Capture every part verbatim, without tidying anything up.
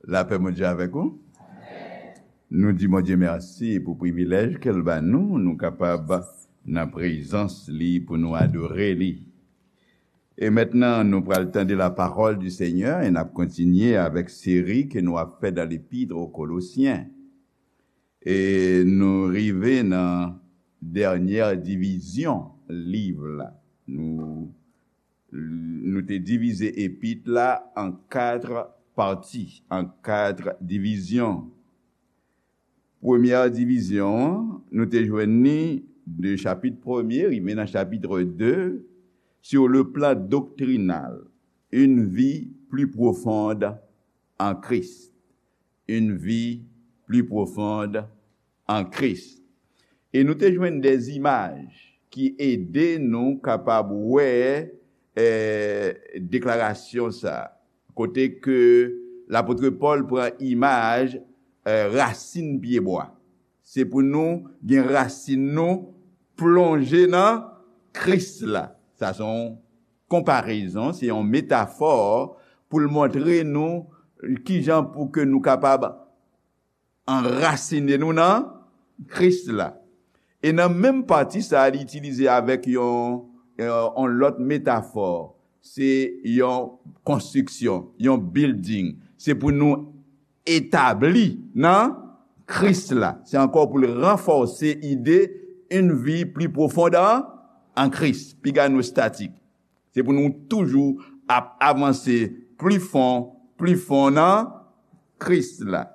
Lapè Bondye avèk ou. Nou di Bondye mèsi pou privilèj ke l ba nou, nou kapab nan prezans li pou nou adore li. E mentnan, nou pral tande la parole du Seigneur e n ap kontinye avèk seri ke nou ap fè dans l'Épître aux Colossiens. E nou rive nan dènyè divizyon liv la. Nou, nou te divize epit la an kat pati, an kat divizyon. Premyè divizyon an, nou te jwenn li de chapit premye rive nan chapit de, sur le plan doctrinal, une vie plus profonde en Christ. Une vie plus profonde en Christ. E nou te jwenn de imaj ki ede nou kapab wè, eh, deklarasyon sa, kote ke lapot Pòl pran imaj, eh, rasin pyebwa. Se pou nou gen rasin nou plonje nan Kris la. Sa se yon konparezon, se yon metafò pou l montre nou kijan pou ke nou kapab anrasine nou nan Kris la. E nan menm pati sa a, li itilize avèk yon, yon, yon lòt metafò. Se yon konstriksyon, yon building. Se pou nou etabli nan Kris la. Se ankò pou l ranfòse ide une vie plus profonde en, en Christ. Piga nou statik. Se pou nou toujou ap avanse pli fon, pli fon nan Kris la.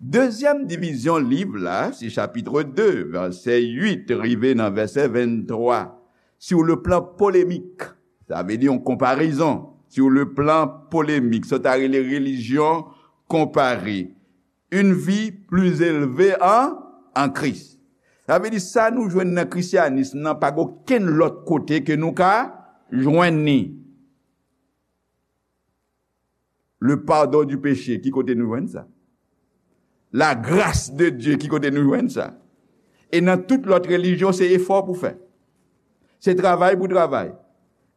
Dezyèm divizyon liv la, se chapit de, vèsè uit rive nan vèsè venntwa. Sur le plan polémique, sa vle di yon konparezon. Sur le plan polémique, sa ta rele relijyon konpare. Une vie plus élevée en, en Christ. Sa vle di sa nou jwenn nan krisyanis nan pa gen okenn lòt kote ke nou ka jwenn li. Le pardon du péché, ki kote nou jwenn sa? La grâce de Dieu, ki kote nou jwenn sa? E nan tout lòt relijyon, se efò pou fè. Se travay pou travay.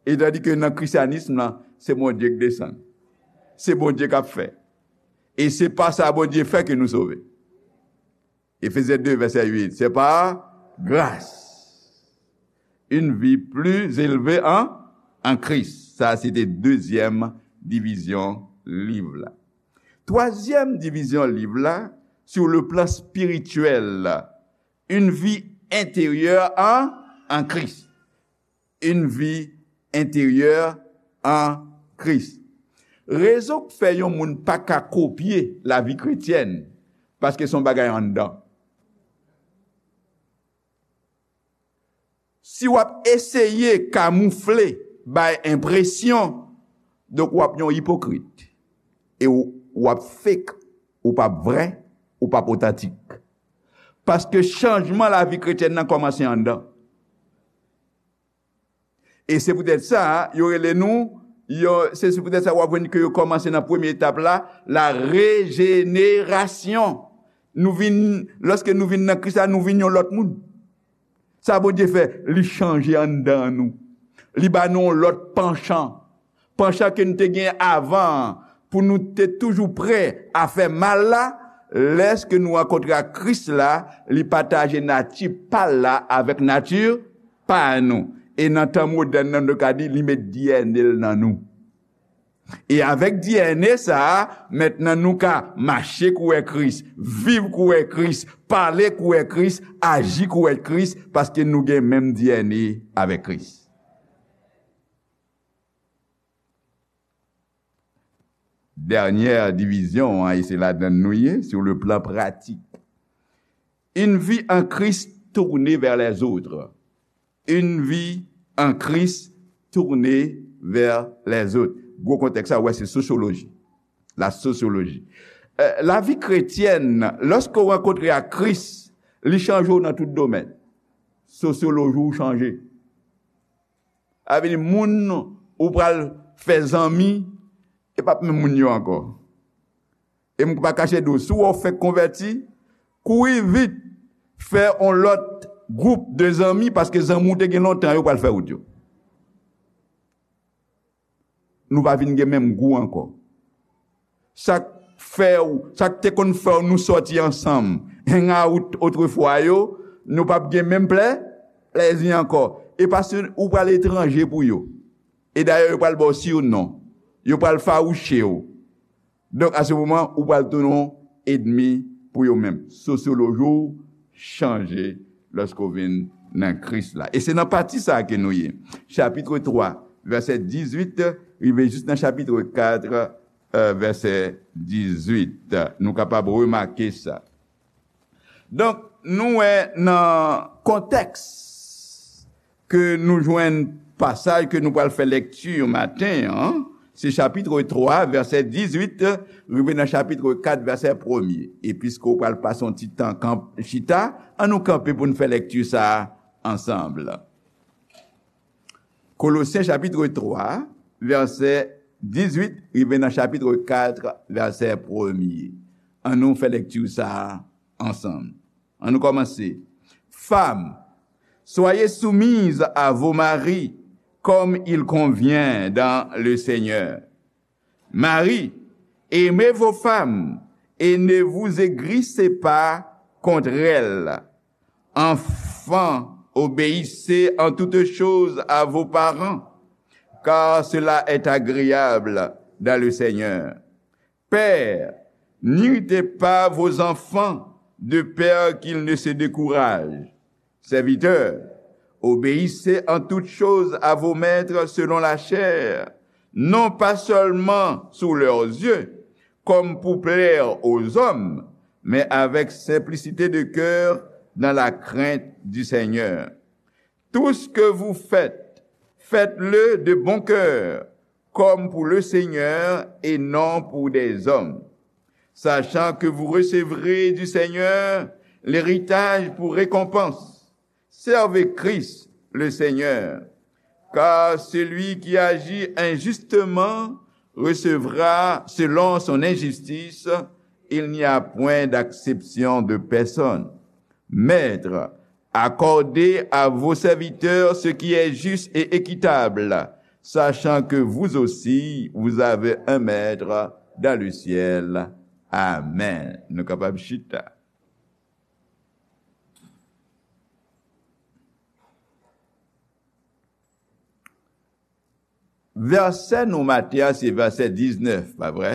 E tandi ke nan krisyanis lan, se Bondye k desann. Se Bondye k ap fè. E se pa sa Bondye fè ke nou sove. Efezyen de, vèsè uit. C'est par grâce. Une vie plus élevée en, en Christ. Sa, se te dezyèm divizyon liv la. Twazyèm divizyon liv la, sur le plan spirituel, une vie intérieure en, en Christ. Une vie intérieure en Christ. Rezon k fè yon moun pa ka kopye lavi kretyèn, paske se yon bagay anndan. Si w ap eseye kamoufle, bay enpresyon, donk w ap yon ipokrit. E w, w ap fake, ou p ap vrè, ou p ap otantik. Paske chanjman lavi kretyèn nan kòmanse anndan. E se poutèt sa, yo rele nou, yo, se, se poutèt sa w ap jwenn ke yo kòmanse nan premye etap la, la rejenerasyon. Nou vin, lòske nou vin nan Kris la, nou vin yon lòt moun. Sa Bondye fè, li chanje anndan nou. Li ba nou yon lòt panchan. Panchan ke nou te gen avan an, pou nou te toujou prè a fè mal la, lèske nou rankontre ak Kris la, li pataje nati pa l la avèk nati pa nou. E nan tan modèn nan, nou ka di, li met D N A l nan nou. E avèk D N A sa a, mentnan nou ka mache kouwè Kris, viv kouwè Kris, pale kouwè Kris, aji kouwè Kris, paske nou gen menm D N A avèk Kris. Dènyè divizyon an, e se ladan l nou ye, sur le plan pratique. Une vie en Christ tournée vers les autres. Une vie en Christ tournée vers les autres. Gwo kontèks sa, ou wè, se sosyoloji. La sosyoloji. Eh, lavi kretyèn, lòske w rankontre ak Kris, li chanje w nan tout domèn. Sosyoloji w chanje. Sa vle di, moun ou pral fè zanmi, e p ap menm moun yo ankò. E m pa kache di w, si w wè w fèk konvèti, kouri vit, fè yon lòt gwoup de zanmi, paske zanmi w te gen lontan yo pral fè wout yo. Nou pa vin gen menm gou ankò. Sa k fè w, sa k te konn fè w nou sòti ansanm, hang out otrefwa yo, nou p ap gen menm plè, plèzi ankò. E paske ou pral etranje pou yo. E dayè, yo pral ba w siwnon. Yo pral fawouche w. Donk, a se moman, ou pral tounen yon ènmi pou yo menm. Sosyoloji w chanje lòske w vin nan Kris la. E se nan pati sa a ke nou ye. Chapit twa, vèsè dizuit, rive jis nan chapit kat, e, vèsè dizuit. Nou kapab remake sa. Donk, nou wè nan kontèks ke nou jwenn pasaj ke nou pral fè lekti maten an, se chapit twa, vèsè dizuit, rive nan chapit kat, vèsè premye. E piske w pral pase yon ti tan kanp-, chita, ann nou kanpe pou n fè lekti sa a ansanm. Kolosyen chapit twa, vèsè dizuit, rive nan chapit kat, vèsè premye. Ann nou fè lekti sa a ansanm. Ann nou kòmanse. Femmes, soyez soumises à vos maris, comme il convient dans le Seigneur. Maris, aimez vos femmes et ne vous aigrissez pas contre elles. Enfants, obéissez en toutes choses à vos parents, car cela est agréable dans le Seigneur. Pères, n'irritez pas vos enfants, de peur qu'ils ne se découragent. Serviteurs, obéissez en toutes choses à vos maîtres selon la chair, non pas seulement sous leurs yeux, comme pour plaire aux hommes, mais avec simplicité de cœur, dans la crainte du Seigneur. Tout ce que vous faites, faites-le de bon cœur, comme pour le Seigneur et non pour des hommes, sachant que vous recevrez du Seigneur l'héritage pour récompense. Servez Christ le Seigneur, car celui qui agit injustement recevra selon son injustice, il n'y a point d'acception de personne. Maîtres, accordez à vos serviteurs ce qui est juste et équitable, sachant que vous aussi, vous avez un maître dans le ciel. Amen. Nou kapab chita. Vèsè nou maten an se vèsè diznèf, pa vre?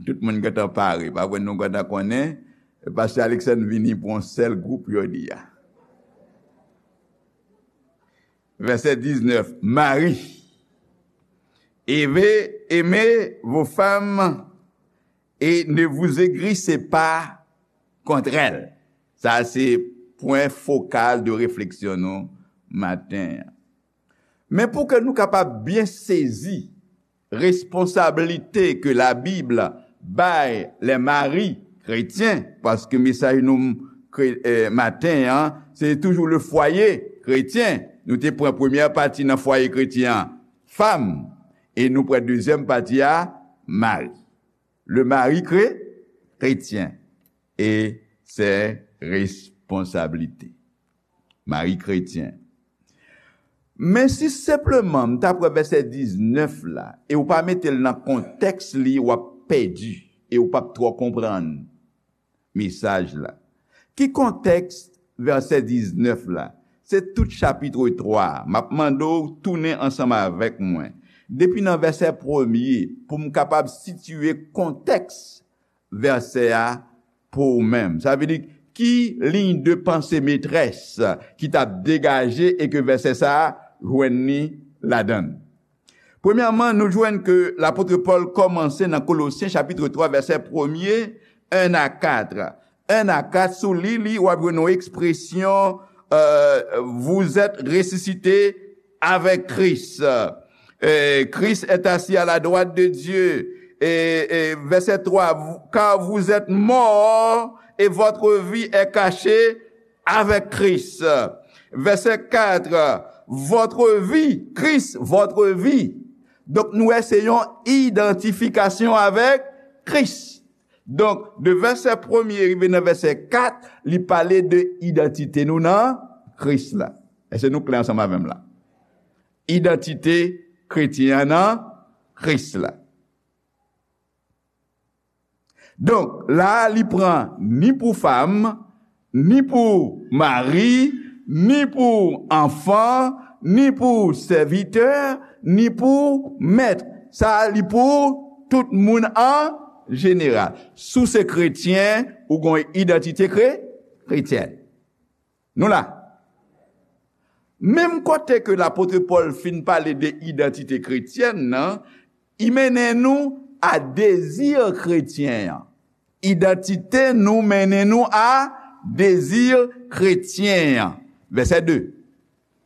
Tout moun gentan pare, pa vre? Nou gentan konnen, Pastè Alexandre vini pou yon sèl gwoup jodi a. Vèsè diznèf, mari. Aimez, aimez vos femmes et ne vous aigrissez pas contre elles. Sa se pwen fokal de refleksyon nou maten an. Men pou ke nou kapab byen sezi responsablite ke Labib bay les maris chrétiens, paske mesaj nou kre-, eh, maten an, se toujou le foyer chrétien. Nou te pran premyè pati nan fwaye kretyen an, fam, e nou pran dezyèm pati a, mari. Le mari kré-, chrétien et ses responsabilités. Mari kretyen. Men si senpleman m ta pran vèsè diznèf la, e w pa mete l nan kontèks li, w ap pèdi, e w p ap twò konprann mesaj la. Ki kontèks vèsè diznèf la? Se tout chapit twa a. M ap mande w tounen ansanm avèk mwen. Depi nan vèsè premye, pou m kapab sitiye kontèks vèsè a pou ou menm. Sa vle di, ki liy de panse metrès ki t ap degaje e ke vèsè sa a jwenn li ladan l? Premyèman, nou jwenn ke lapot Pòl kòmanse nan Kolosyen chapit twa, vèsè premye, en a kat. En a kat, si w li li, w ap jwenn yon ekspresyon, euh, vous êtes ressuscités avec Christ. Et Christ est assis à la droite de Dieu. Et, et verset trois, car vous êtes morts et votre vie est cachée avec Christ. Verset quatre, votre vie, Christ, votre vie. Donk, nou wè se yon idantifikasyon avèk Kris. Donk, de vèsè premye rive nan vèsè kat, li pale de idantite nou nan Kris la. Èske nou klè ansanm avè m la? Idantite kretyen an nan Kris la. Donk, la a, li pran ni pou fanm, ni pou mari, ni pou anfan, ni pou sèvitè, ni pou mèt. Sa a, li pou tout moun an jeneral. Si w se kretyen, ou gen yon idantite kre-, kretyèn. Nou la. Menm kote ke lapot Pòl fin pale de idantite kretyèn nan, li mennen nou a dezi kretyen an. Idantite nou mennen nou a dezi kretyen an. Vèsè de.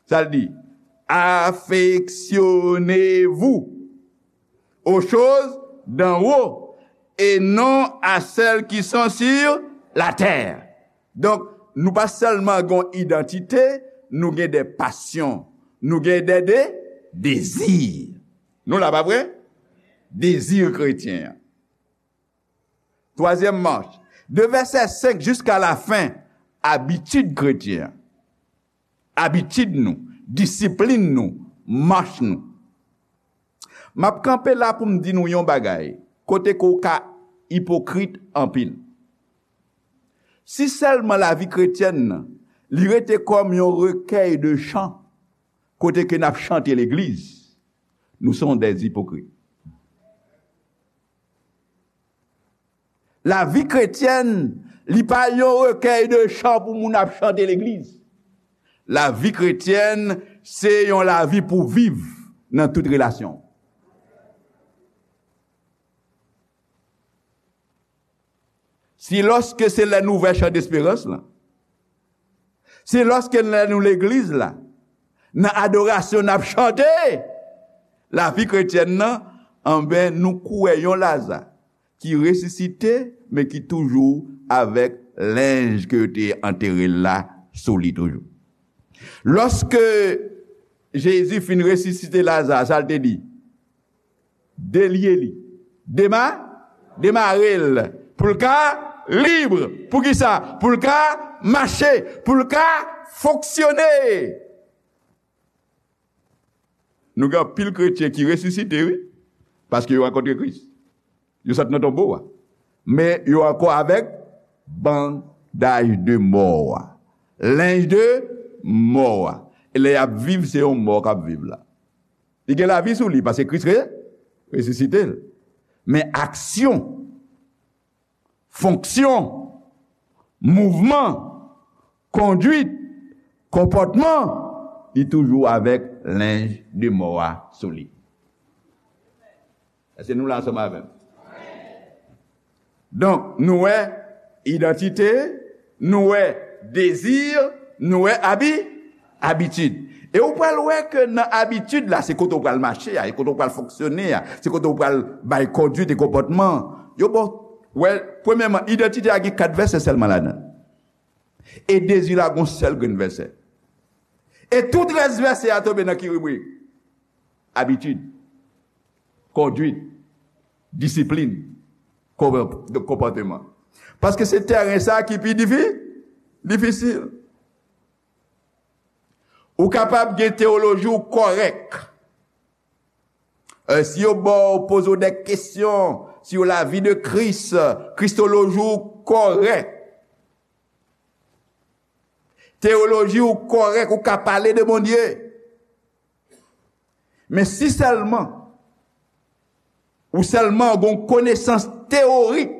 Sa l di, affectionnez-vous aux choses d'en haut et non à celles qui sont sur la terre. Donk, nou pa sèlman gen yon idantite, nou gen de pasyon, nou gen de, de dezi. Nou la, pa vre? Dezi kretyen an. Twazyèm mach, de vèsè senk jiska lafen, abitid kretyen an. Abitid nou, disiplin nou, mach nou. M ap kanpe la pou m di nou yon bagay, kote ke w ka ipokrit anpil. Si sèlman lavi kretyèn nan, li rete kòm yon rekèy de chan, kote ke n ap chante legliz, nou se yon dèz ipokrit. Lavi kretyèn, li pa yon rekèy de chan pou moun ap chante legliz. Lavi kretyèn, se yon lavi pou viv nan tout relasyon. Si lòske se lè n ouvè chan desperans lan, si lòske lè nou legliz la, nan adorasyon n ap chante lavi kretyèn nan, anben, nou kwè yon Laza ki resisite, men ki toujou avèk lenj ke yo te antere l la sou li toujou. Lòske Jezi fin resisite Laza, sa l te di? Delye li. Dema-, demare l. Pou l ka lib. Poukisa? Pou l ka mache. Pou l ka fonksyone. Nou gen anpil kretyen ki resisite, wi. Paske yo rankontre Kris. Yo sot nan tonbo a. Men yo ankò avèk bandaj de mò a. Lenj de mò a. E lè y ap viv, se yon mò k ap viv la. Li gen lavi sou li, paske Kris re-, resisite l. Men aksyon, fonksyon, mouvman, kondwit, konpòtman, li toujou avèk lenj de mò a sou li. Èske nou la ansanm avè m? Donk, nou wè idantite, nou wè dezi, nou wè abi-, abitid. E ou pral wè ke nan abitid la, se kote ou pral mache a, e kote ou pral fonksyone a, se kote ou pral bay kondwit e konpòtman. Yo ba w, wè, premyèman, idantite a gen kat vèsè sèlman ladan l. E dezi la gon sèl grenn vèsè. E tout rès vèsè a tonbe nan ki ribrik? Abitid, kondwit, disiplin, konpò-, konpòteman. Paske se tèren sa ki pi difi-, difisil. Ou kapab gen teyoloji w kòrèk. E, si yo ba w, poze w de kesyon sou lavi de Kris, kristoloji w kòrèk. Teyoloji w kòrèk, ou ka pale de Bondye. Men si sèlman, ou sèlman gen yon konesans teyorik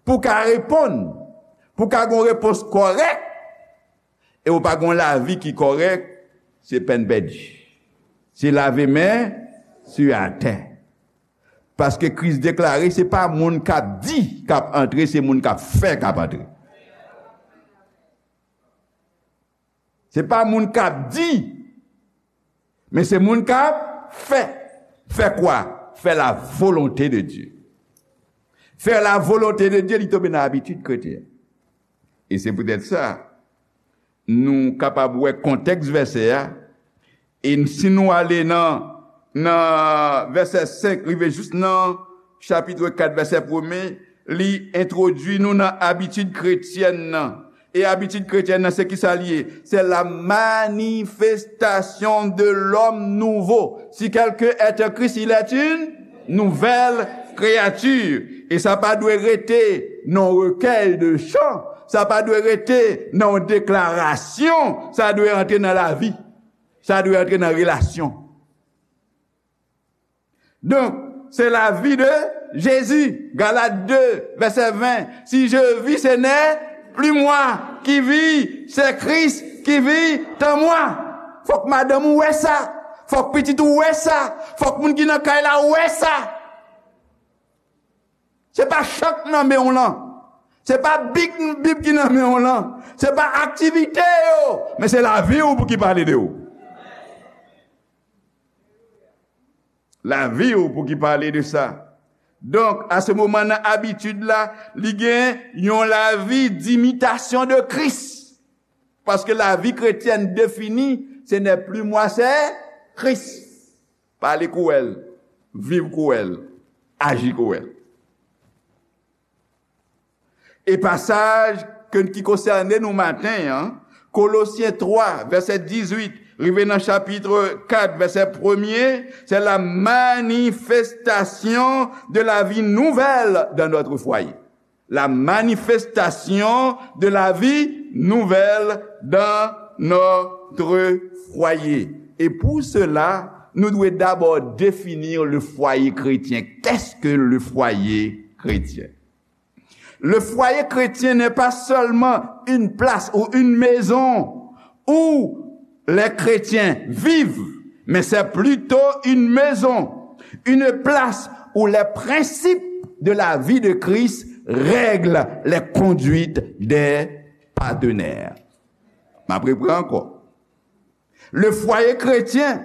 pou w ka reponn, pou w ka gen yon repons kòrèk, e ou pa gen yon lavi ki kòrèk, se pèn pèdi. Se lave men sou atè. Paske Kris deklare, se pa moun k ap di k ap antre, se moun k ap fè k ap antre. Se pa moun k ap di, men se moun k ap fè. Fè kwa? Fè la volonté de Dieu. Fè la volonté de Dieu, li tonbe nan abitid kretyen. E se poutèt sa, nou kapab wè kontèks vèsè a, e si nou ale nan, nan vèsè senk rive jis nan chapit kat, vèsè premye, li entwodui nou nan abitid kretyèn nan. E abitid kretyèn nan, se ki sa l ye? C'est la manifestation de l'homme nouveau. Si quelqu'un est en Christ, il est une nouvelle créature. E sa pa dwe rete nan yon rekèy de chan, sa pa dwe rete nan yon deklarasyon, sa dwe antre nan lavi, sa dwe antre nan relasyon. Donk, se lavi de Jezi. Galat de, vèsè ven. Si je vis, ce n'est plus moi qui vis, c'est Christ qui vit en moi. Fòk madanm ou wè sa. Fòk pitit ou wè sa. Fòk moun ki nan kay la wè sa. Se pa chan k nan men w lan. Se pa bib, bib ki nan men w lan. Se pa aktivite yo. Men se lavi w pou ki pale de ou. Lavi w pou ki pale de sa. Donk, a se moman nan abitid la, li gen yon lavi d'imitasyon de Kris. Paske lavi kretyèn defini, ce n'est plus moi, c'est Christ. Pale kou w wè l, viv kou w wè l, aji kou w wè l. E pasaj ke, ki konsène nou maten an, Kolosyen twa, vèsè dizuit, rive nan chapit kat, vèsè premye, c'est la manifestation de la vie nouvelle dans notre foyer. La manifestation de la vie nouvelle dans notre foyer. Et pour cela, nou dwe dabò defini le foyer chrétien. Qu'est-ce que le foyer chrétien? Le foyer chrétien n'est pas seulement une place ou une maison où les chrétiens vivent, mais c'est plutôt une maison, une place où les principes de la vie de Christ règlent les conduites des partenaires. M ap repran ankò. Le foyer chrétien,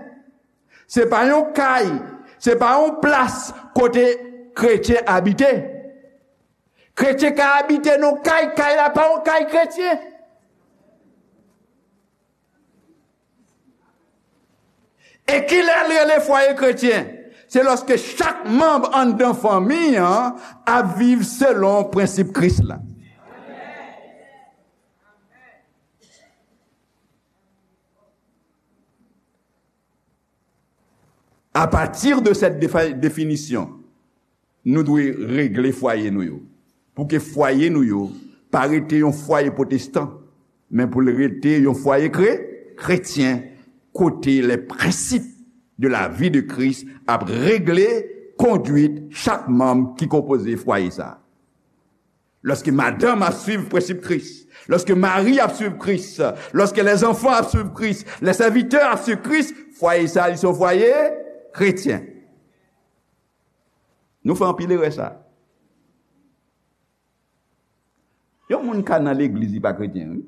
se pa yon kay, se pa yon plas kote kretyen abite. Kretyen ka abite nan kay, kay la pa yon kay kretyen. E kilè l rele fwaye kretyen? Se lòske chak manm anndan fanmi an ap viv selon prensip Kris la. Apati de cette défi- définition, nou dwe regle fwaye nou yo. Pou ke fwaye nou yo pa rete yon fwaye pwotestan, men pou l rete yon fwaye kre, kretyen, kote les principes de la vie de Christ ap regle kondwit chak manm ki konpoze fwaye sa. Lòske madanm ap swiv prensip Kris, lòske mari ap swiv Kris, lòske lèzanfan ap swiv Kris, lèsèvitè ap swiv Kris, fwaye sa, li se yon fwaye kretyen. Nou fè anpil erè sa. Yon moun ka nan legliz, li pa kretyen, wi.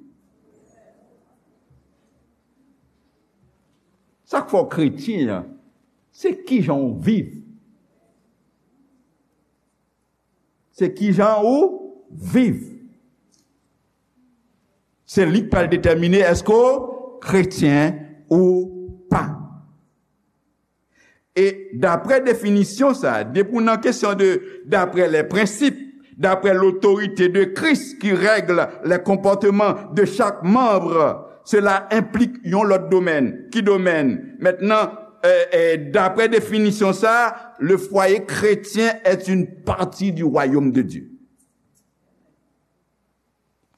Sa k fè w kretyen an, se kijan w viv. Se kijan ou viv. Se li k pral detèmine èske w kretyen ou pa. E daprè definisyon sa, depi w nan kesyon de d'après les principes, d'après l'autorité de Christ qui règle les comportements de chaque membre, cela implique yon lòt domèn. Ki domèn? Mentnan, euh, euh, daprè definisyon sa, le foyer chrétien est une partie du royaume de Dieu.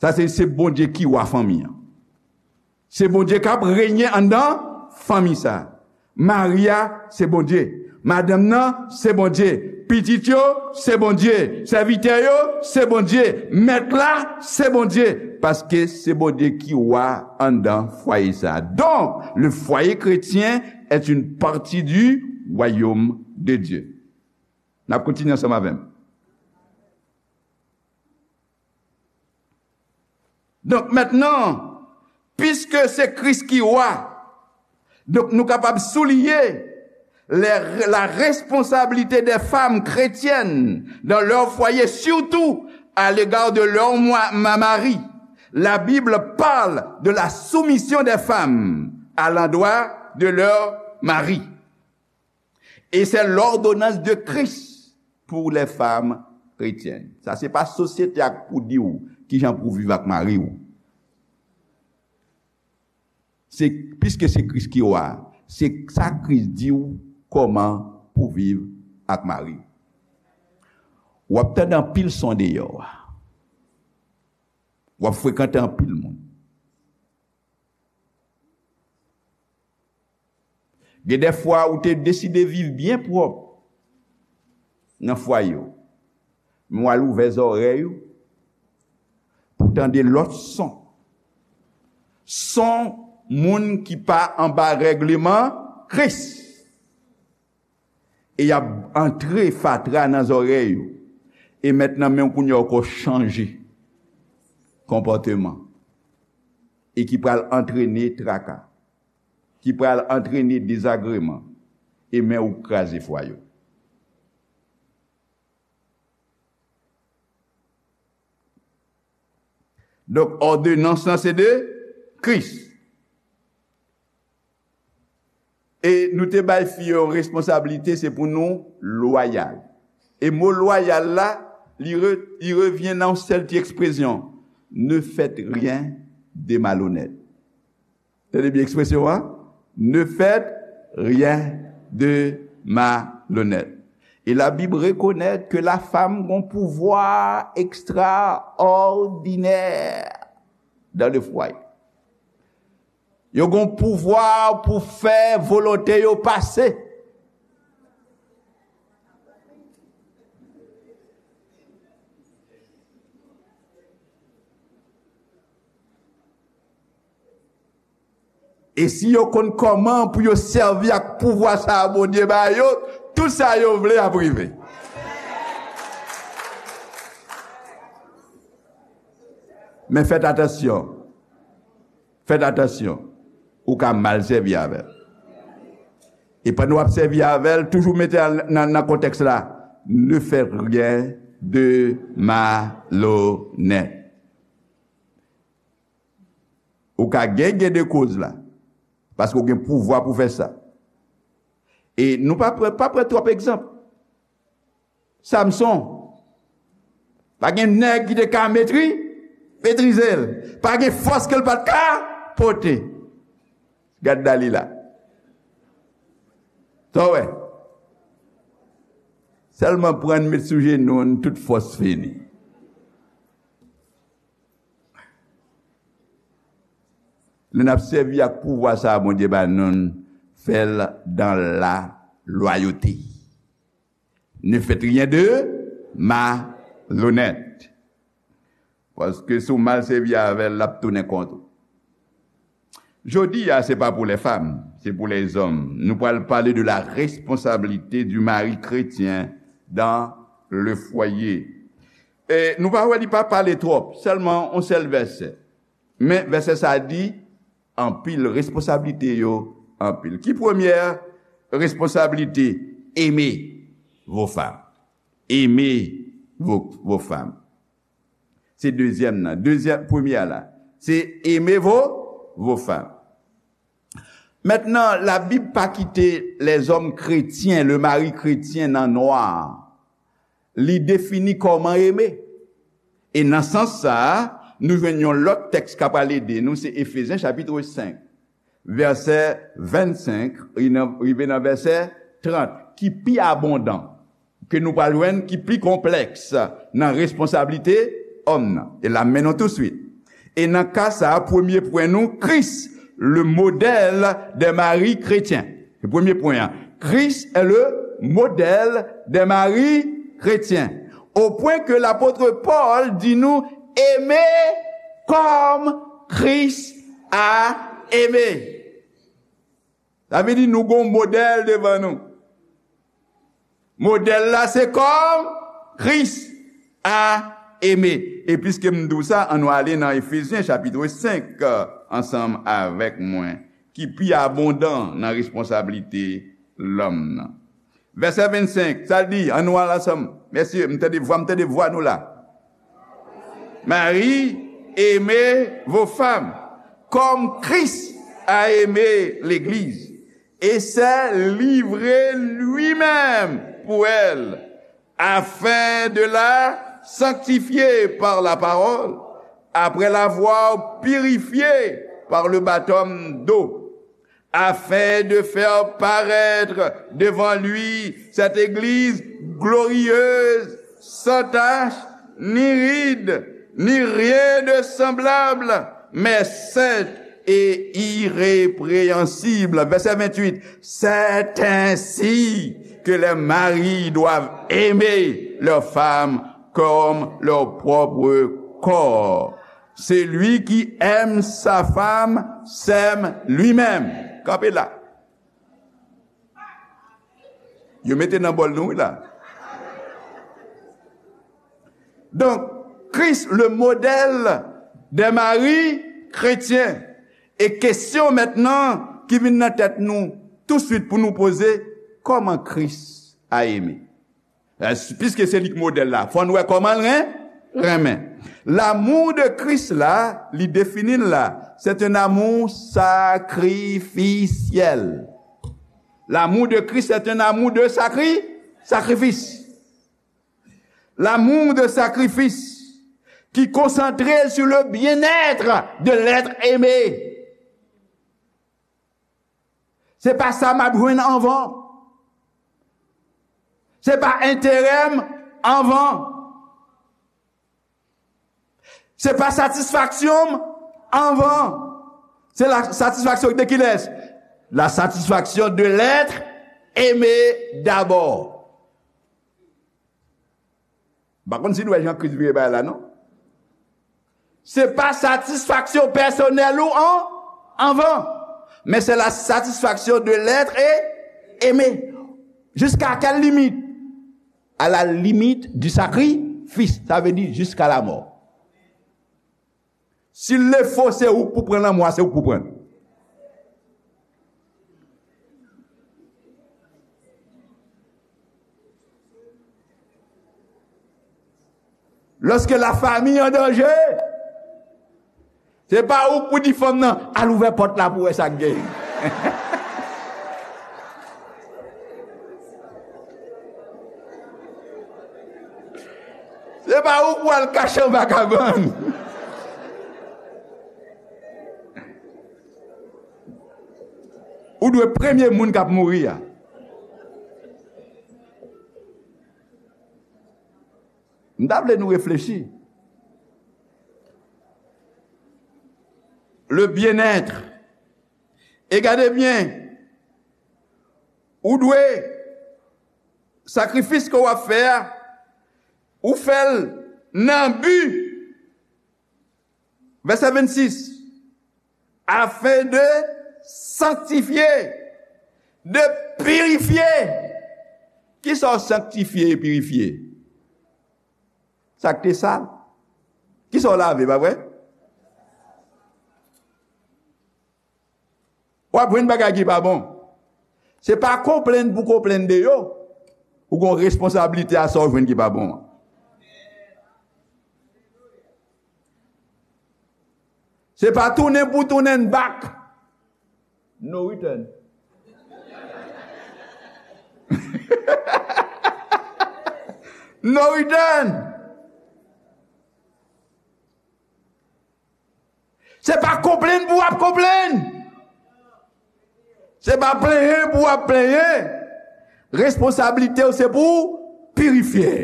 Sa se, se Bondye ki wa fanmi an. Se Bondye k ap renye anndan fanmi sa. Mari a, se Bondye. Madanm nan, se Bondye. Pitit yo, se Bondye. Sèvitè yo, se Bondye. Mèt la, se Bondye. Paske se Bondye ki wa anndan fwaye sa. Donc, le foyer chrétien est une partie du royaume de Dieu. N ap kontinye ansanm avè m. Donk, mentnan, piske se Kris ki wa, donk, nou kapab souliye les, la responsabilité des femmes chrétiennes dans leur foyer, surtout à l'égard de leur moi- ma- mari. La Bible parle de la soumission des femmes à l'endroit de leur mari. Et c'est l'ordonnance de Christ pour les femmes chrétiennes. Sa se pa sosyete a k pou di w kijan pou w viv ak mari w. Se, piske se Kris ki wa, se sa Kris di w kòman pou w viv ak mari w. W ap tande anpil son deyò a. W ap frekante anpil moun. Gen de fwa ou te deside viv byen pwòp nan fwaye w. Men w al ouvè zòrèy ou pou w tande lòt son. Son moun ki pa anba règleman Kris. E y ap antre fatra nan zòrèy ou. E mentnan menm kounye a ou ko chanje konpòteman. E ki pral antrene traka. Ki pral antrene dezagreman. E men ou kraze fwaye w. Donk, òdonans lan se de Kris. E nou te bay fi yo yon responsablite, se pou nou lwayal. E mo lwayal la, li re-, li revyen nan yon sèl ti ekspresyon, ne faites rien de malhonnête. Tande byen ekspresyon an, ne faites rien de malhonnête. E Labib rekonèt ke lafam gon pouvwa ekstraòdinè dans le foyer. Yo gon pouvwa pou fè volonte yo pase. E si yo konn kòman pou yo sèvi ak pouvwa sa a Bondye ba yo, tout sa yo vle ap rive. Men fèt atansyon. Fèt atansyon. Ou ka mal sèvi avè l. E pandan w ap sèvi avè l, toujou mete l nan, nan kontèks la. Ne faites rien de malhonnête. Ou ka gen, gen de koz la. Paske w gen pouvwa pou fè sa. E nou pa pran, pa pran twòp egzanp. Samson. Pa gen nèg ki te ka metri, metrize l. Pa gen fòs ke l pa t ka pote. Gad Dalila. Sa w wè? Sèlman pran n met sou jenou n, tout fòs fini. Lè n ap sèvi ak pouvwa sa a Bondye ba nou, n fè l dans la loyauté. Ne faites rien de malhonnête. Paske si w mal sèvi avè l, l ap tounen kont ou. Jodi a, se pa pou lè fanm, se pou lèzòm. Nou pral pale de la responsabilité du mari chrétien dans le foyer. E nou pa wè li pa pale twòp, sèlman yon sèl vèsè. Men vèsè sa a di, anpil, responsablite yo anpil. Ki premyè responsablite? Aimer vos femmes. Aimer vos, vos femmes. Se dezyèm nan. Dezyèm, premyè a la, se aimer vos, vos femmes. Mentnan, Labib pa kite lèzòm kretyen, le mari chrétien nan nwa. Li defini kòman eme. E nan sans sa a, nou jwenn yon lòt tèks k ap pral ede nou, se Efezyen chapit senk, vèsè vennsenk, rive nan vèsè trant, ki pi abondan, ke nou pral jwenn ki pi konplèks nan responsablite òm nan. E l ap mennen nou touswit. E nan ka sa a, premye pwen nou, Christ, le modèle des maris chrétiens. Se premye pwen an. Christ est le modèle des maris chrétiens. Au point que l'apôtre Paul di nou, aimez comme Christ a aimé. Sa vle di nou gon modèl devan nou. Modèl la se kòm Kris a eme. E piske m di w sa, ann nou ale nan Efezyen chapit senk, euh, ansanm avèk mwen, ki pi abondan nan responsablite lòm nan. Vèsè vennsenk, sa l di, ann nou al ansanm. Mesye, m tande vwa, m tande vwa nou la. Marie, aimez vos femmes, comme Christ a aimé l'Église, et s'est livré lui-même pour elle, afin de la sanctifier par la parole, après l'avoir purifiée par le baptême d'eau, afin de faire paraître devant lui cette Église glorieuse, sans tache, ni ride, ni rien de semblable, mais sainte et irrépréhensible. Verset vingt-huit. C'est ainsi que les maris doivent aimer leurs femmes comme leur propre corps. Celui qui aime sa femme s'aime lui-même. Kanpe la. Yo mete nan bòl nou, wi, la. Donk, Kris, le modèle des maris chrétiens. E kesyon mentnan ki vin nan tèt nou touswit pou nou poze, kòman Kris a eme? Piske se li k modèl la, fò n wè kòman l ren-, renmen. L'amour de Christ la, li defini l la, c'est un amour sacrificiel. L'amour de Christ, c'est un amour de sacri-, sacrifice. L'amour de sacrifice qui est concentré sur le bien-être de l'être aimé. Se pa sa m ap jwenn anvan. Se pa enterè m anvan. Se pa satisfaksyon m anvan. Se la satisfaction de qui laisse? La satisfaction de l'être aimé d'abord. M pa konn si nou wè jan Kris vire bagay la, non. Se pa satisfaksyon pèsonèl ou an, anvan, men se la satisfaction de l'être aimé. Jusqu'à quelle limite? À la limite du sacrifice, sa vle di jusqu'à la mort. Si l le fo, se ou k pou pran lanmò a, se ou k pou pran l. Lorsque la famille en danger, se pa ou k pou di fanm nan, "Al ouvè pòt la pou wè sa k gen." Se pa ou pou al kache anba kabann. Ou dwe premye moun k ap mouri a. M ta vle nou reflechi. Le bien-être. E gade byen, ou dwe, sakrifis ke w ap fè a, ou fè l nan bi, vèsè vennsis, afin de sanctifier, de purifier. Kisa w sanktifye e pirifye? Sa k te sal. Kisa w lave, pa vre? W ap jwenn bagay ki pa bon. Se pa konplenn pou konplenn de yo. Ou gen responsablite a sa w jwenn ki pa bon an. Se pa tounen pou tounen back. No return. No return. Se pa konplenn pou w ap konplenn. Se pa plenyen pou w ap plenyen. Responsablite w se pou w pirifye.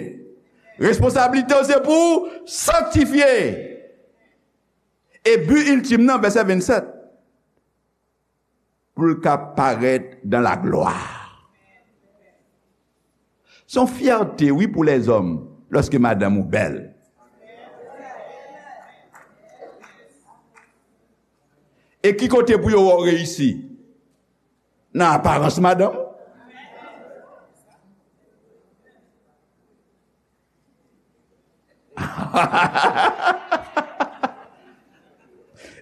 Responsablite w se pou w sanktifye. E bi iltim nan, vèsè vennsèt, pou l ka parèt dans la gloire. Se yon fyète, wi, pou lèzòm, lòske madanm ou bèl. E ki kote pou yo wè w reyisi? Nan aparans madanm?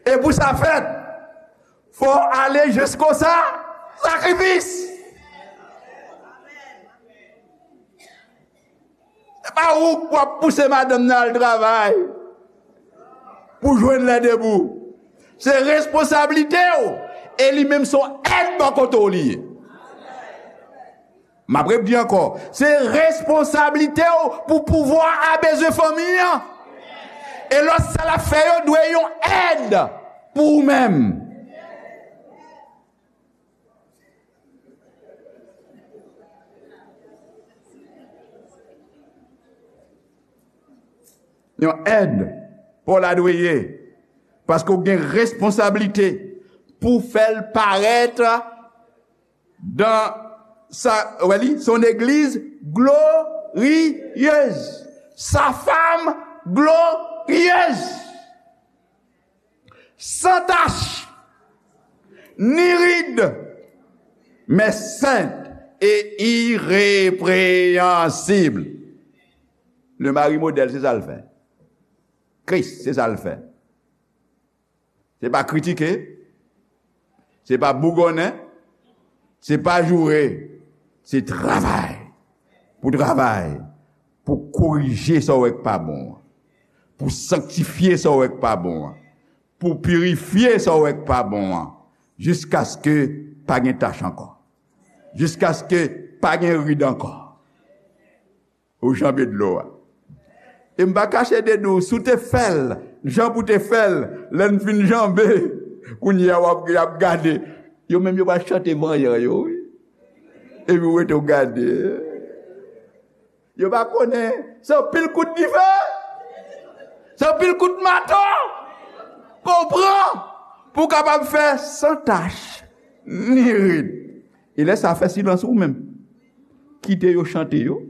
E pou sa fèt, fò w ale jisko sa, sakrifis. Se pa ou k ap pouse madanm nan al travay pou jwenn lè debou. Se responsablite w, e li menm se yon èd bò kote w li ye. M ap repdi ankò, se responsablite w pou pouvwa a bezwen fanmi an. E lòt sa l ap fè yo dwe yon èd pou ou menm. yon èd pa w la dwe ye, paske w gen responsablite pou fè l parèt dan sa, wè li, son église glorieuse, sa femme glorieuse, sans tache, ni ride, mais sainte et irrépréhensible. Le mari modèle, se sa l fè. Kris, se sa l fè. Se pa kritike, se pa bougonnen, se pa joure, se travay. Pou travay, pou korije sa w wè k pa bon an, pou sanktifye sa w wè k pa bon an, pou pirifye sa w wè k pa bon an, jiskaske pa gen tach ankò, jiskaske pa gen rid ankò. Ou janbe dlo a. E m pa kache de di w, si w te fè l jan pou te fè l, lè n fin janbe, kounye a w ap, y ap gade. Yo menm yo pral chante vanyan yo, wi. Epi w rete w gade. Yo pa konnen. Se yon pil kout dife. Se yon pil kout mato. Konpran. Pou w kapab fè san tach, ni rid. E lè sa fè silans ou menm. Kite yo chante yo.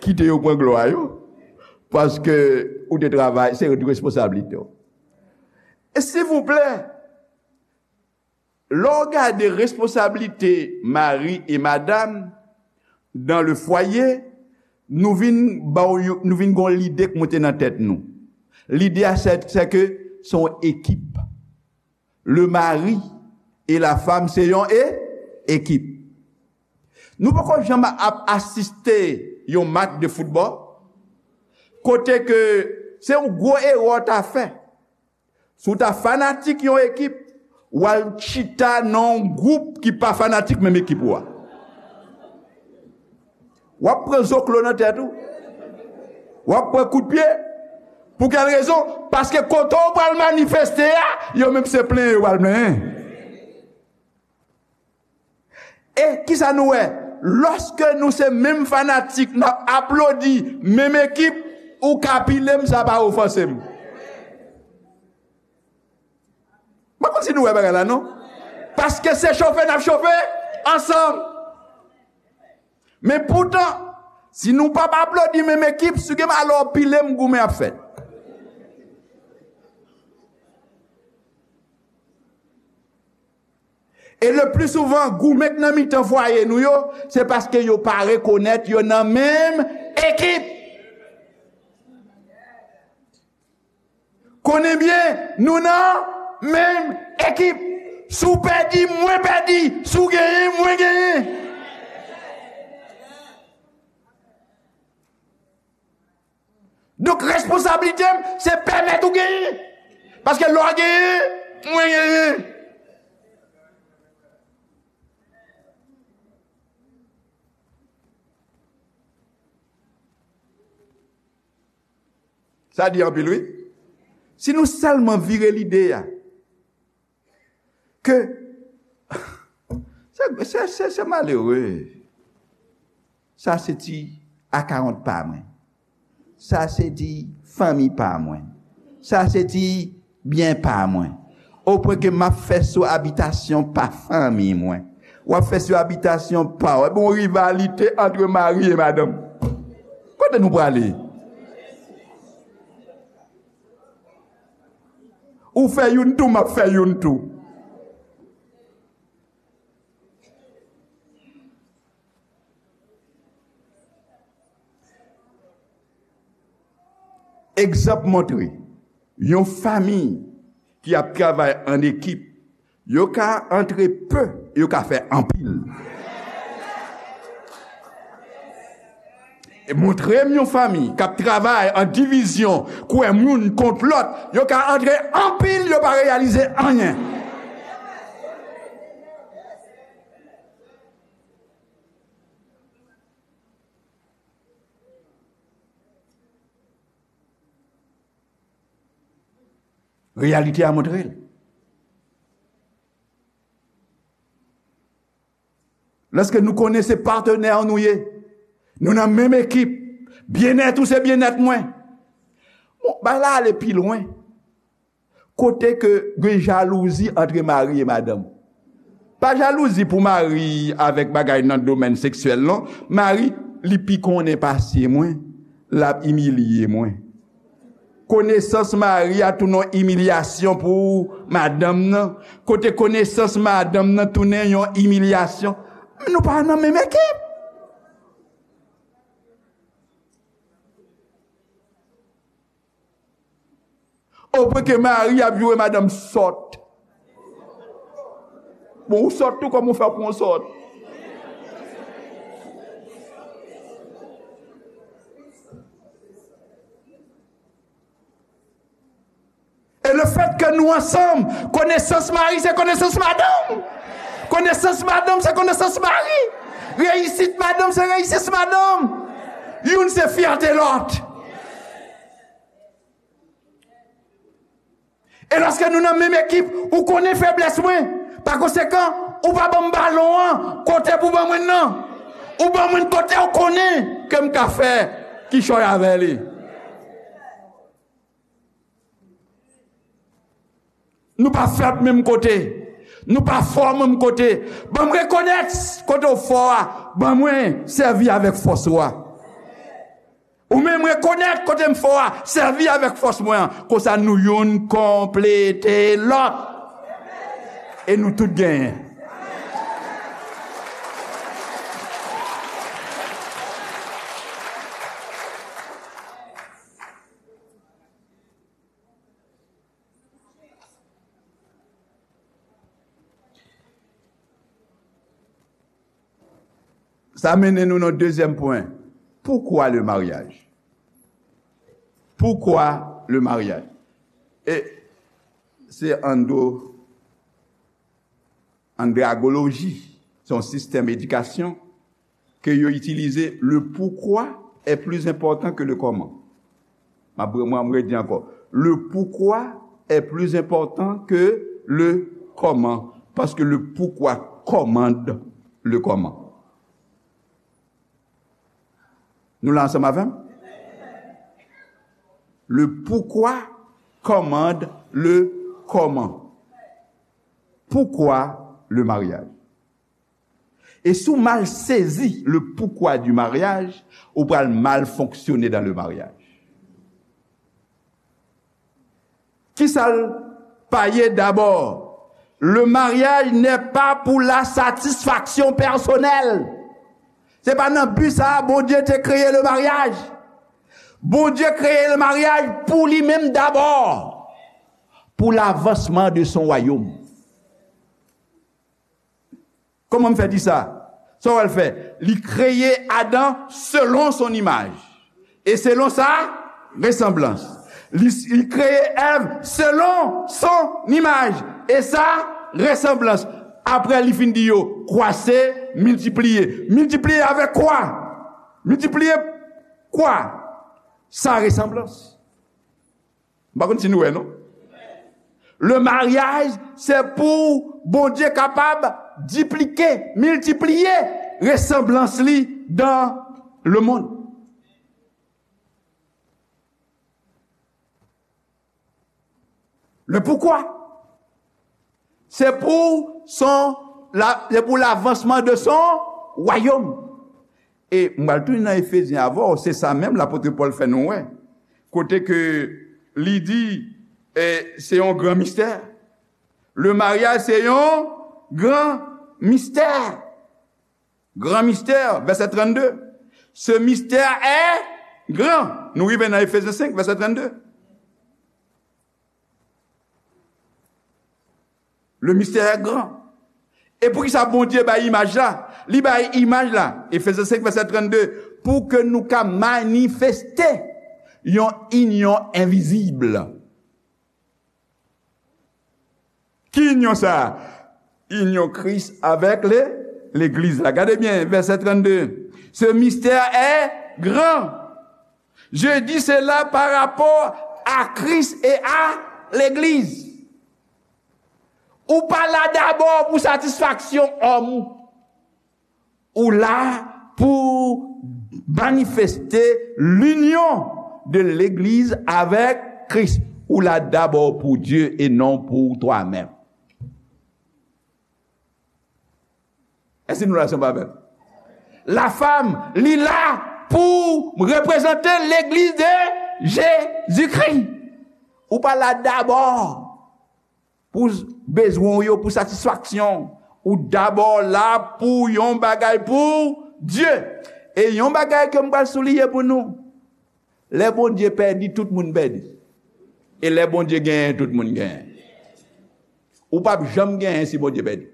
Kite yo pran glwa yo. Paske ou te travay, se responsablite w. E silvouplè, lè w gade responsablite mari e madanm dans le foyer, nou vin ba w yon, nou vin gon lide k monte nan tèt nou. Lide a, se, se ke se yon ekip. Le mari et la femme, se yon e, ekip. Nou poko janm ap asiste yon match de football kote ke se yon gwo erè w ta fè. Si w ta fanatik yon ekip, w al chita nan yon gwoup ki pa fanatik menm ekip ou a. W ap pran zoklo nan tèt ou. W ap pran kout pye. Pou kèl rezon? Paske kote w pral manifeste a, yo menm se plenyen yo pral plenyen. E kisa nou wè? Lòske nou se menm fanatik, n ap aplodi menm ekip, ou ka pile m, sa pa ofanse m. Mwen konn si nou wè bagay la, non? Paske se chofe n ap chofe ansanm. Men poutan, si nou p ap aplodi menm ekip, si gen alò pile m, goumen ap fèt. E le pli souvan, goumen k nan mitan fwaye nou yo, se paske yo pa rekonèt yo nan menm ekip. Konnen byen, nou nan menm ekip. Si w pèdi, mwen pèdi. Si w genyen, mwen genyen. Donk, responsablite m, se pèmèt ou genyen. Paske lè w genyen, mwen genyen. Sa di anpil, wi. Si nou sèlman vire lide a, ke se, se, se, se malere. Sa se ti akawont pa mwen. Sa se ti fanmi pa mwen. Sa se ti byen pa mwen. Opwen ke m ap fè sou abitasyon pa fanmi mwen. W ap fè sou abitasyon pa w. Epi yon rivalite ant mari e madanm. Kote nou prale? Ou fè youn tou, m ap fè youn tou. Egzanp montre, yon fanmi ki ap travay an ekip, yo ka antre pe, yo ka fè anpil. E montre m yon fanmi k ap travay an divizyon, kwè moun kont lòt, yo ka antre anpil, yo pa reyalize anyen. Reyalite a montre l. Lòske nou konnen se patnè nou ye, nou nan menm ekip, byennèt ou se byennèt mwen. Bagay la ale pi lwen. Kote ke gen jalouzi antre mari e madanm. Pa jalouzi pou mari avèk bagay nan domèn seksyèl, non. Mari, li pi konnen pase mwen, l ap imilye mwen. Konesans mari a tounen yon imilyasyon pou madanm nan. Kote konesans madanm nan tounen yon imilyasyon. Nou pa nan menm ekip. Opwen ke mari ap joure madanm sòt. Bon, ou sòt tou, kòman ou fè pou w sòt? E le fèt ke nou ansanm, konesans mari se konesans madanm. Konesans madanm se konesans mari. Reyisit madanm se reyisit madanm. Youn se fyète lòt. E lòske nou nan menm ekip, ou konnen feblès mwen. Pa konsekan, ou pa ban m balon an kote pou ban mwen nan. Ou ban mwen kote ou konnen ke m ka fè kichòy avè li. Nou pa fèb menm kote. Nou pa fò menm kote. Ban m rekonèt kote w fò a. Ban mwen sèvi avèk fòs ou a. Ou menm rekonèt kote m fò a, sèvi avèk fòs mwen an. Konsa nou youn konplete lòt. E nou tout genyen. Sa mennen nou nan dezyèm pwen. Pourquoi le mariage? Pourquoi le mariage? E se ando, andragoloji, se yon sistèm edikasyon ke yo itilize, le pourquoi est plus important que le comment. M ap, mwen, mwen redi ankò. Le pourquoi est plus important que le comment. Parce que le pourquoi commande le comment. Nou la ansanm avè m? Le pourquoi commande le comment. Pourquoi le mariage? E si w mal sezi le pourquoi du mariage, ou pral mal fonksyone dans le mariage. Kisa l pa ye dabò? Le mariage n'est pas pour la satisfaction personnelle. Se pa nan bi sa a Bondye te kreye le mariage. Bondye kreye le mariage pou li menm dabò, pou lavansman de son wayòm. Kòman m fè di sa? Sa w al fè? Li kreye Adan selon son imaj. E selon sa resanblans. Li, li kreye Èv selon son imaj. E sa resanblans. Apre li fin di yo, kwase, miltipliye. Miltipliye avèk kwa? Miltipliye kwa? Sa resanblans. M pa konn si nou wè, non. Le mariage, se pou Bondye kapab diplike, miltipliye resanblans li dans le monde. Le pourquoi? Se pou son, la, se pou lavansman de son wayòm. E m pral tounen nan Efezyen avè w, se sa menm lapot Pòl fè nou wè. Kote ke li di, e, se yon gran mistè. Le mariage, se yon gran mistè. Gran mistè, vèsè trannde. Ce mystère est grand. Nou rive nan Efezyen senk, vèsè trannde. Le mystère est grand. E poukisa Bondye bay imaj la? Li bay imaj la, Efezyen senk, vèsè trannde, pou ke nou ka manifeste yon inyon envizib. Ki inyon sa a? Inyon Kris avèk le, legliz la. Gade byen, vèsè trannde. Ce mystère est grand. Je dis cela par rapport à Christ et à l'église. Ou pa la dabò pou satisfaksyon òm ou. Ou la pou manifeste linyon de legliz avèk Kris. Ou la dabò pou Dye e non pou twa menm. Èske nou la, sanble avè m? Lafam, li la pou reprezante legliz de Jezikri. Ou pa la dabò pou bezwen w yo, pou satisfaksyon. Ou dabò la pou yon bagay pou Dye. E yon bagay ke m pral souliye pou nou. Lè Bondye pèdi, tout moun pèdi. E lè Bondye genyen, tout moun genyen. Ou p ap janm genyen si Bondye pèdi.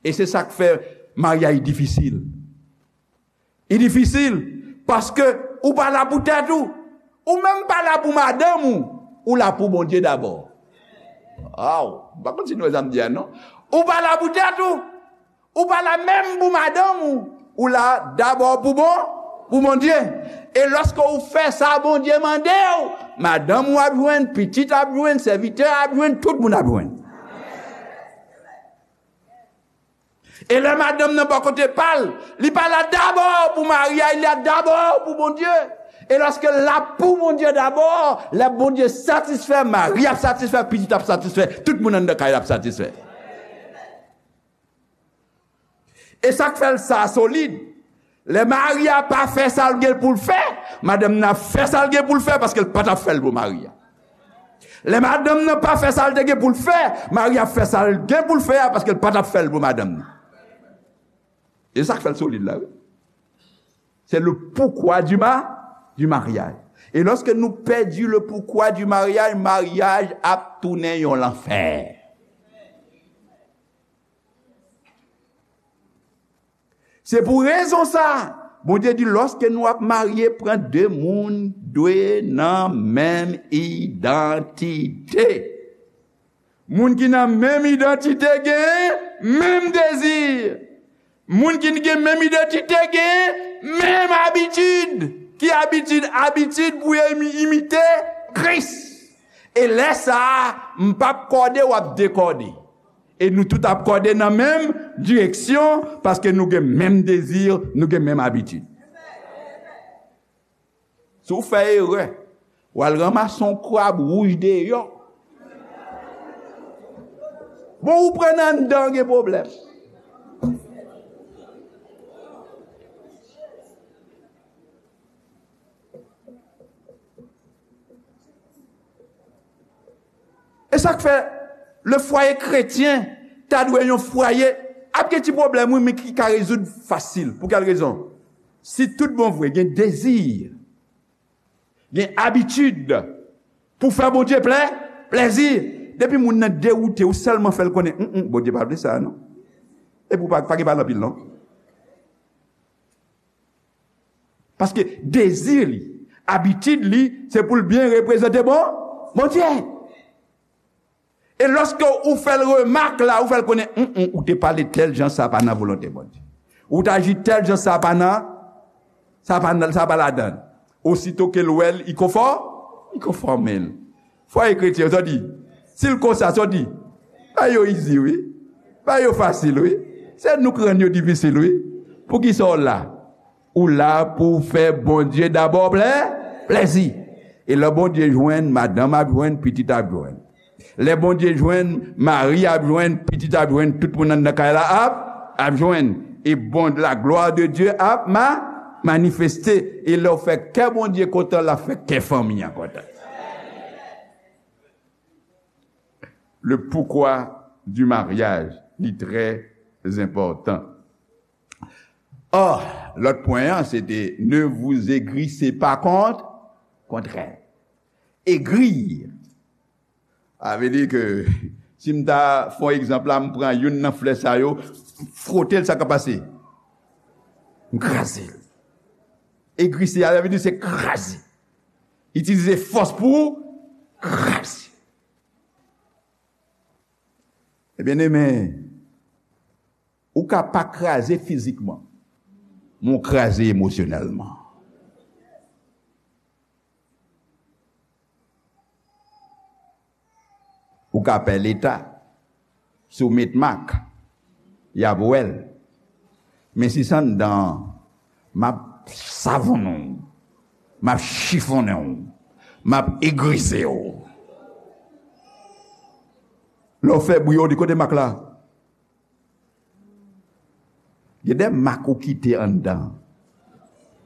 E se sa k fè maryaj difisil. Li difisil paske ou pa la pou tèt ou. Ou menm pa la pou madanm ou. Ou la pou Bondye dabò. Aw, m pa konn si nou wè sa m di a, non. Ou pa la pou tèt ou. Ou pa la menm pou madanm ou. Ou la dabò pou bon, pou Bondye. E lòske ou fè sa Bondye mande w, madanm ou ap jwenn, pitit ap jwenn, sèvitè ap jwenn, tout moun ap jwenn. E lè madanm nan bò kote pa l, li pa la dabò pou mari a, li la dabò pou Bondye. E lòske l la pou Bondye dabò, lè Bondye satisfè, mari ap satisfè, pitit ap satisfè, tout moun anndan kay la ap satisfè. E sa k fè l sa solid. Lè mari a pa fè sa l gen pou l fè, madanm nan ap fè sa l gen pou l fè paske l pa t ap fè l pou mari a. Lè madanm nan pa fè sa l te gen pou l fè, mari a ap fè sa l gen pou l fè a paske l pa t ap fè l pou madanm nan. E sa k fè l solid la, wi. C'est le pourquoi du ma-, du mariage. E lòske nou pèdi le pourquoi du mariage, maryaj ap tounen yon lanfè. Se pou rezon sa, Bondye di, lòske nou ap marye, pran de moun dwe nan menm idantite. Moun ki nan menm idantite gen menm dezi. Moun ki gen menm idantite gen menm abitid. Ki abitid? Abitid pou yo imi-, imite Kris. E lè sa a, m p ap kòde, w ap dekòde. E nou tout ap kòde nan menm direksyon, paske nou gen menm dezi, nou gen menm abitid. Si w fè erè, w al ranmase yon krab wouj deyò. Bon, ou pran nan anndan, gen pwoblèm. E sa k fè le fwaye kretyen ta dwe yon fwaye ap gen ti pwoblèm, wi, men ki ka rezoud fasil. Pou kèl rezon? Si tout bon vre gen dezi, gen abitid pou fè Bondye plè, plèzi, depi moun nan dewoute, ou sèlman fè l konnen, "Hum, hum, Bondye pa vle sa, non." Epi ou pa, pa gen pale anpil, non. Paske dezi li, abitid li, se pou l byen reprezante bon, Bondye. E lòske ou fè l remak la, ou fè l konnen, "Hum, hum, ou te pale tèl jan, sa pa nan volonte Bondye. Ou t aji tèl jan, sa pa nan, sa pa nan, sa pa ladan." Osito ke l wè l, li konfò-, li konfòme l. Fwaye kretyen, sa w di? Si l konsa, sa w di? Bagay yo izi, wi. Bagay yo fasil, wi. Se nou k rann yo difisil, wi. Poukisa w la? Ou la pou w fè Bondye dabò plè-, plèzi. E lè Bondye jwenn, madanm ap jwenn, pitit ap jwenn. Lè Bondye jwenn, mari ap jwenn, pitit ap jwenn, tout moun anndan kay la ap, ap jwenn. E bon, la gloire de Dieu ap ma-, manifeste. E lè w fè kè Bondye kontan, l ap fè kè fanmi an kontan. Le pourquoi du mariage, li trè enpòtan. Or, lòt pwen an, se te, ne vous aigrissez pas contre, contre elle. Aigrir. Sa vle di ke, si m ta fè yon egzanp la, m pran youn nan flè sa yo, fwote l, sa k ap pase? M kraze l. Aigrisser, sa vle di se kraze. Itilize fòs pou kraze. Ebyen, ebyen, ou ka pa kraze fizikman, men w kraze emosyonèlman. Ou ka pè Leta, si w met mak, y ap wè l. Men si s anndan an, m ap savonnen w, m ap chifonnen w, m ap egrize w. Lè w fè bri, yo di, "Kote mak la?" Gen de mak ou kite anndan,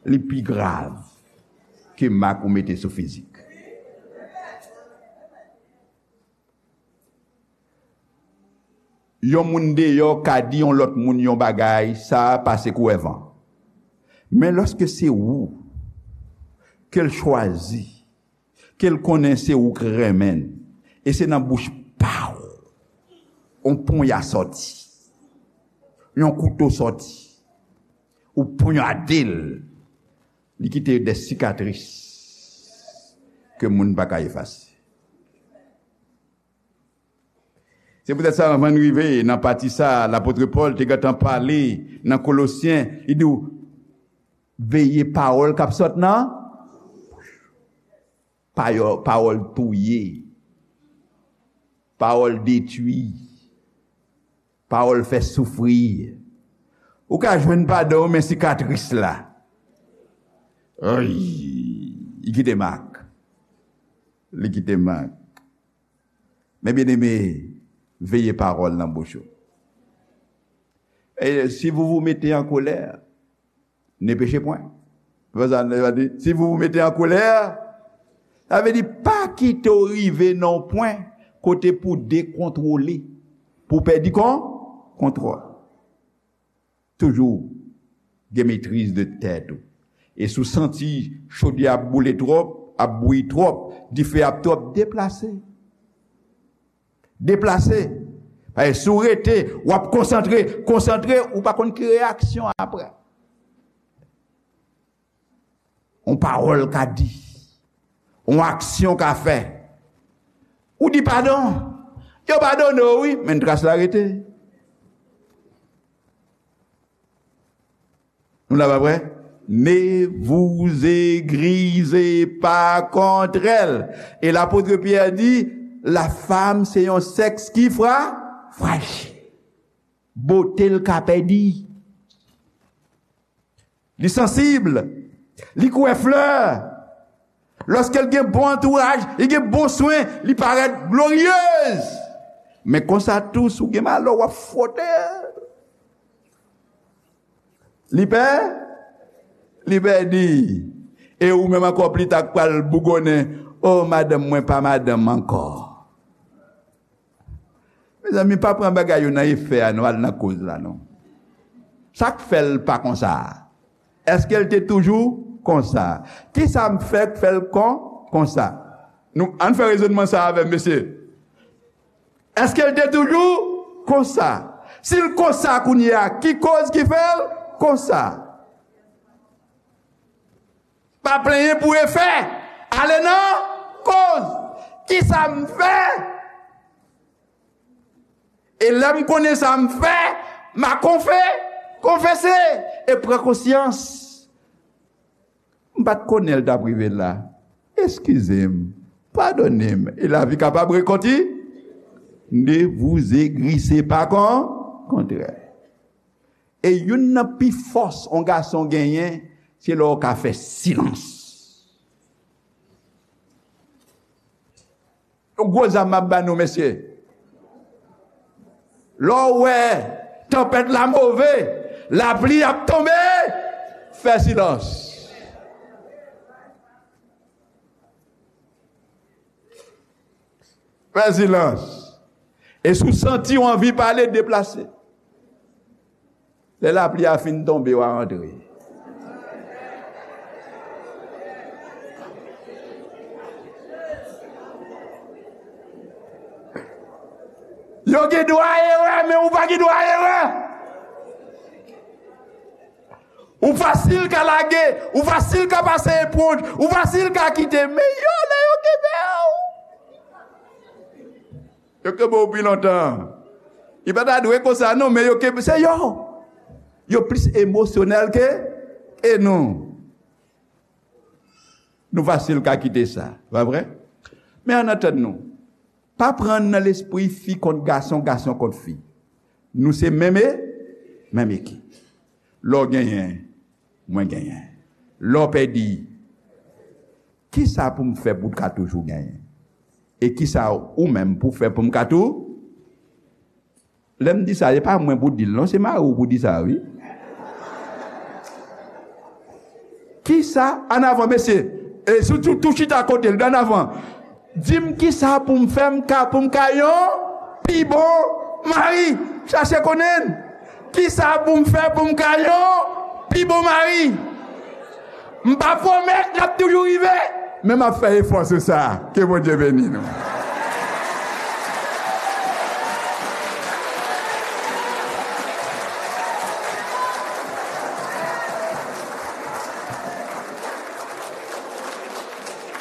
li pi grav ke mak ou mete sou fizik. Yon moun deyò ka di yon lòt moun yon bagay, sa pase kou wè van. Men lòske se ou ke l chwazi, ke l konnen se ou k renmen l, e se nan bouch pa w yon ponya sòti, yon kouto sòti, ou ponyade l, li kite de sikatris ke moun pa ka efase. Se poutèt sa, anvan n rive nan pati sa, lapot Pòl te gentan pale nan Kolosyen, li di w, veye pawòl k ap sot nan pawòl, pawòl touye, pawòl detwi, pawòl fè soufri. Ou ka jwenn padon, men sikatris la, ay, li kite mak. Li kite mak. Men byeneme, veye pawòl nan bouch ou. Et si vous vous mettez en colère, ne péchez point. Vè sa, li di, si vous vous mettez en colère, sa vle di pa kite w rive nan yon pwen kote pou dekontwole, pou pèdi kon, kontwòl. Toujou gen metriz de tèt ou. E si w santi chodyè ap boule twòp, ap bouyi twòp, dife ap twòp, deplase. Deplase. Paske si w rete, w ap konsantre, konsantre, ou pa konn ki reyaksyon apre. Yon pawòl ka di, yon aksyon ka fè. Ou di padon, yo padone w wi, men tras la rete. Nou la pa vre? Ne vous aigrisez pas contre elle. E lapot Pyè di, la femme se yon sèks ki fra, frajil. Bote l ka pèdi. Li sansib. Li kwè flè. Lòske l gen bon antouraj, li gen bon swen, li parèt gloryez. Men konsa tou, si w gen malè, w ap fwote. Li pè, li pèdi. E ou menm ankò pli ta k pral bougonnen, o madanm mwen pa madanm ankò. Mezanmi, pa pran bagay yo nan efè a, non, al nan koz la, non. Sa k fè l pa konsa a? Èske l te toujou konsa? Kisa m fè k fè l kon, konsa? Nou, ann fè rezònman sa avè m, mesye. Èske l te toujou konsa? Si l konsa kounye a, ki koz ki fè l konsa? Pa plenyen pou efè. Ale nan koz. Kisa m fè? E lè m konnen sa m fè, m a konfe, konfese e pran konsyans. M pa t konnen l t ap rive la. Eskize m, padone m, e lavi kapab rekonti. Ne vous aigrisez pas kon, kontrè. E youn nan pi fòs yon gason genyen, se lè w ka fè silans. Yon gwo zam m ap ba nou, mesye. Lè w wè tanpèt la move, lapli ap tonbe, fè silans. Fè silans. E si w santi w anvi pale, deplase. Lè lapli a fin tonbe, w a antre. Yo gen dwa erè, men ou pa gen dwa erè. Ou fasil ka lage, ou fasil ka pase eponj, ou fasil ka kite, men yo, lè yo kenbe w, yo kenbe w pi lontan. Li pa ta dwe konsa, non, men yo kenbe, se yo. Yo plis emosyonèl ke, ke nou. Nou fasil ka kite sa, pa vre? Men ann antann nou. Pa pran nan lespri fi kont gason, gason kont fi. Nou se menm e, menm ekip. Lè w genyen, mwen genyen. Lè w pèdi, kisa pou m fè pou w ka toujou genyen? E kisa ou menm pou fè pou m ka tou? Lè m di sa, e pa mwen pou di l non, se mari w pou di sa, wi. Kisa, ann avan, mesye, e si w tou, tou chita kote l, ann avan. Di m kisa pou m fè m ka, pou m ka yon pi bon mari. Chache konnen. Kisa pou m fè pou m ka yon pi bon mari? M pa pwomèt l ap toujou rive, men m ap fè efò sou sa. Ke Bondye beni nou.